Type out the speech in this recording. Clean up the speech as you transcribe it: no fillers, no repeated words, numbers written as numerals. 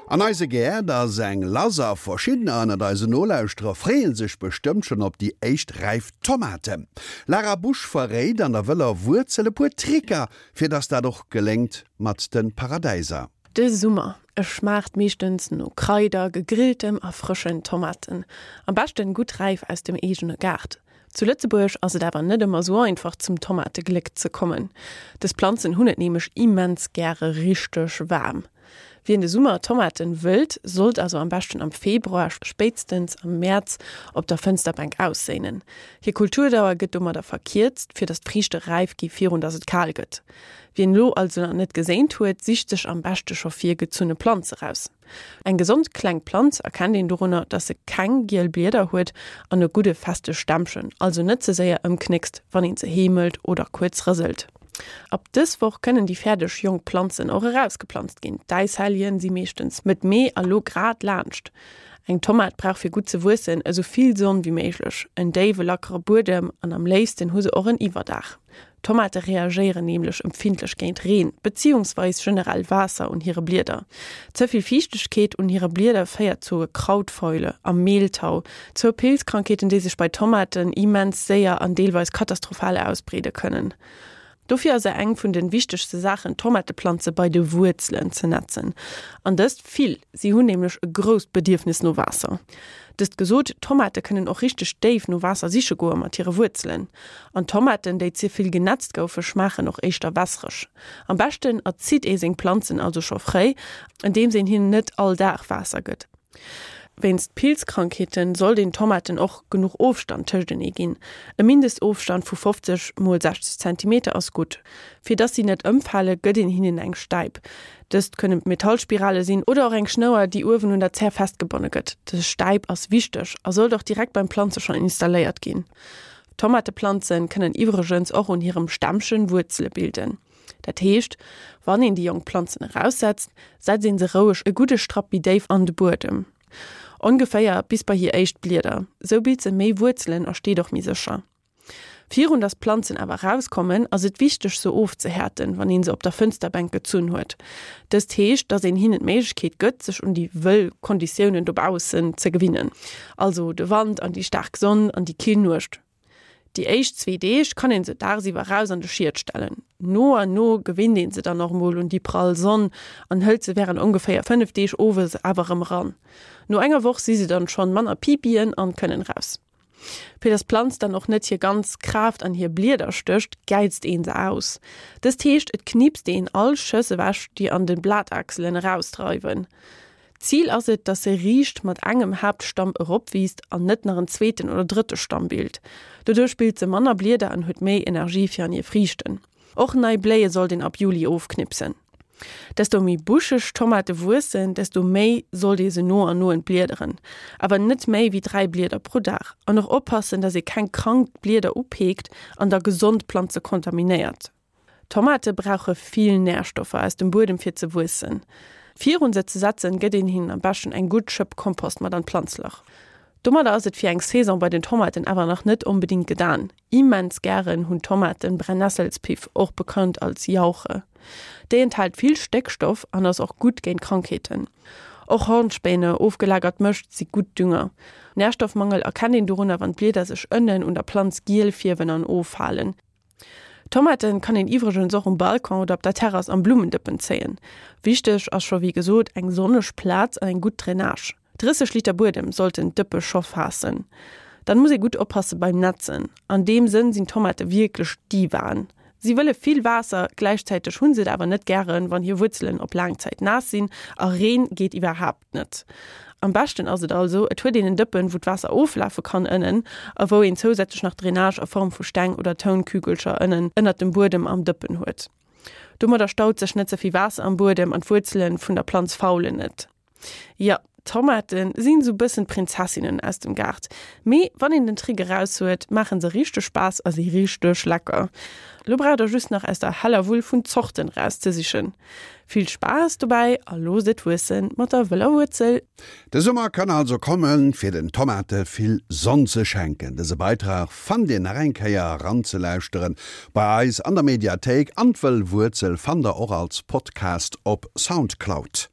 An eise Gäert ass eng lass a verschiddener ënnert eisen Nolauschterer freeë sech bestëmmt schonn op déi éischt räif Tomaten. Lara Busch verréit an der wëller Wuerzel e puer Tricker, fir dass dat och geléngt mat de Paradäiser. De Summer, e schmaacht meeschtens no Kraider, gegrilltem a frëschen Tomaten. Am beschten gutt räif aus dem eegene Gaart. Zu Lëtzebuerg ass et awer net ëmmer sou einfach zum Tomategléck ze kommen. Dës Planzen hunn et nämlech immens gäre richteg waarm. Wien de Summer Tomaten wëllt, sollt also am beschten am Februar, spéitstens am Mäerz op der Fënsterbänk ausséinen. Hir Kulturdauer gëtt domadder verkierzt, fir datt d'Friichte räif gi virun datt et kal gëtt. Wien elo also nach net geséint huet, sicht sech am beschte scho virgezunne Planze raus. Eng gesond kleng Planz erkennt een dorunner, dass se keng giel Blieder huet an e gudde feste Stämmchen, also net ze séier ëmknéckst, wann een se heemelt oder kuerz rëselt. Ab dës Woch kënnen déi fäerdeg jonk Planzen och erausgeplanzt ginn. D'Äishelljen si meeschtens Mëtt Mee a lo grad laanscht. Eng Tomat brauch fir gutt ze wuessen esou vill Sonn wéi méiglech, en déiwe lackere Buedem an am léifsten hu se och en Iwwerdaach. Tomate reagéieren nämlech empfindlech géint Reen, beziehungsweis generell Waasser un hire Blieder. Ze vill Fiichtegkeet un hire Blieder féiert zu Krautfäule a Mehltau, zwou Pilzkrankheeten, déi sech bei Tomaten immens séier an deelweis katastrophal ausbreede kënnen. Dofir ass eng vun de wichtegste Saachen, d'Tomateplanze bei de Wuerzelen ze netzen. An dëst vill, si hunn nämlech e grousst Bedierfnis no Waasser. Dëst gesot, Tomate kënnen och richteg déif no Waasser siche goe mat hire Wuerzelen. An Tomaten, déi ze vill genetzt goufe, schmaachen och éischter wässereg. Am beschten erzitt ee seng Planzen also scho fréi, andeems een hinnen net all Dag Waasser gëtt. Wéinst Pilzkrankheeten sollt een Tomaten och genuch Ofstand tëschtenee ginn. E Mindestofstand vu 50 mol 60 Zentimeter ass gutt. Fir dass si net ëmfale gëtt een hinnen eng Stäip. Dëst kënne Metallspirale sinn oder och eng Schnouer, déi uewen un der Zär festgebonne gëtt. Dës Stäip ass wichteg a sollt och direkt beim Planze schonn installéiert ginn. Tomateplanzen kënnen iwwregens och un hirem Stämmchen Wuerzele bilden. Dat heescht, wann een déi jonk Planzen eraussetzt, setzt een se roueg e gudde Strapp méi déif an de Buedem. Ongeféier bis bei hir éischt Blieder. Sou bilt se méi Wuerzelen a steet och méi sécher. Virun dass d'Planzen awer erauskommen, ass et wichteg se ofzehäerten, wann een se op der Fënsterbänk gezunn huet. Dëst heescht, dass een hinnen d'Méiglechkeet gëtt, sech un déi wëll Konditiounen dobaussen ze gewinnen, also de Wand an déi staark Sonn an déi kill Nuecht. Déi éischt zwee Deeg kann een se dagsiwwer raus an de Schied stellen. No an no gewinnt een se dann och mol un déi prall Sonn an hëlt se wärend ongeféier 5 Deeg owes awer erëm eran. No enger Woch si se dann schonn manner Pipien an kënnen raus. Fir dass d'Planz dann och net hir ganz Kraaft an hir Blieder stécht, gäizt een se aus. Dëst heescht, et knipst een all Schëss ewech, déi an de Blatachselen erausdreiwen. D'Zil ass et, dass se riicht mat engem Haaptstamm eropwiisst an net nach en zweeten oder drëtte Stamm bilt. Doduerch bilt se manner Blieder an huet méi Energie fir an hir Friichten. Och nei Bléie sollt een ab Juli ofknipsen. Desto méi buscheg d'Tomate wuessen, desto méi sollt ee se no an no entbliederen. Awer net méi wéi 3 Blieder pro Dag. An och oppassen, dass ee keng krank Blieder upeekt an da gesond Planze kontaminéiert. Tomate brauche vill Närstoffer aus dem Buedem fir ze wuessen. Virun se ze setzen, gëtt een hinnen am beschten eng gutt Schëpp Kompost mat an d'Planzlach. Domadder ass et fir eng Saison bei den Tomaten awer nach net onbedingt gedan. Immens gären hunn Tomaten Brennnesselspiff, och bekannt als Jauche. Déi enthält vill Stéckstoff an ass och gutt géint Krankheeten. Och Hornspäne, ofgelagert Mëscht, si gutt Dünger. Närstoffmangel erkennt een dorunner, wann d'Blieder sech ënnen un der Planz giel fierwen an offalen. Tomaten kann een iwwregens och um Balcon oder op der Terrass am Blummendëppen zéien. Wichteg ass scho wéi gesot eng sonneg Plaz an eng gutt Drainage. 30 Liter Buedem sollten d'Dëppe scho faassen. Dann muss ee gutt oppasse beim Netzen. An deem Sënn sinn Tomate wierklech Divaen. Si wëlle vill Waasser, gläichzäiteg hunn se et awer net gären, wann hir Wuerzelen op laang Zäit naass sinn a Reen geet iwwerhaapt net. Am beschten ass et also, et huet een en Dëppen, wou d'Waasser oflafe kann ënnen a wou een zousätzlech nach Drainage a Form vu Steng oder Tounkügelcher ënnen ënnert dem Buedem am Dëppen huet. Domadder staut sech net ze vill Waasser am Buedem an d'Wuerzelen vun der Planz faulen net. Jo, Tomaten sinn sou bëssen d'Prinzessinnen aus dem Gaart. Mee wann een den Trick eraus huet, maachen se richteg Spaass a si richteg lecker. Lo braucht der just nach aus der heller Wull vun Zorten erauszesichen. Vill Spaass dobäi a loosst et wuessen mat der wëller Wuerzel! De Summer kann also kommen, fir den Tomate vill Sonn ze schenken. Dëse Beitrag fannt Dir nach eng Kéier eranzelauschteren bei eis an der Mediathéik an d'Wëll Wuerzel fannt der och als Podcast op Soundcloud.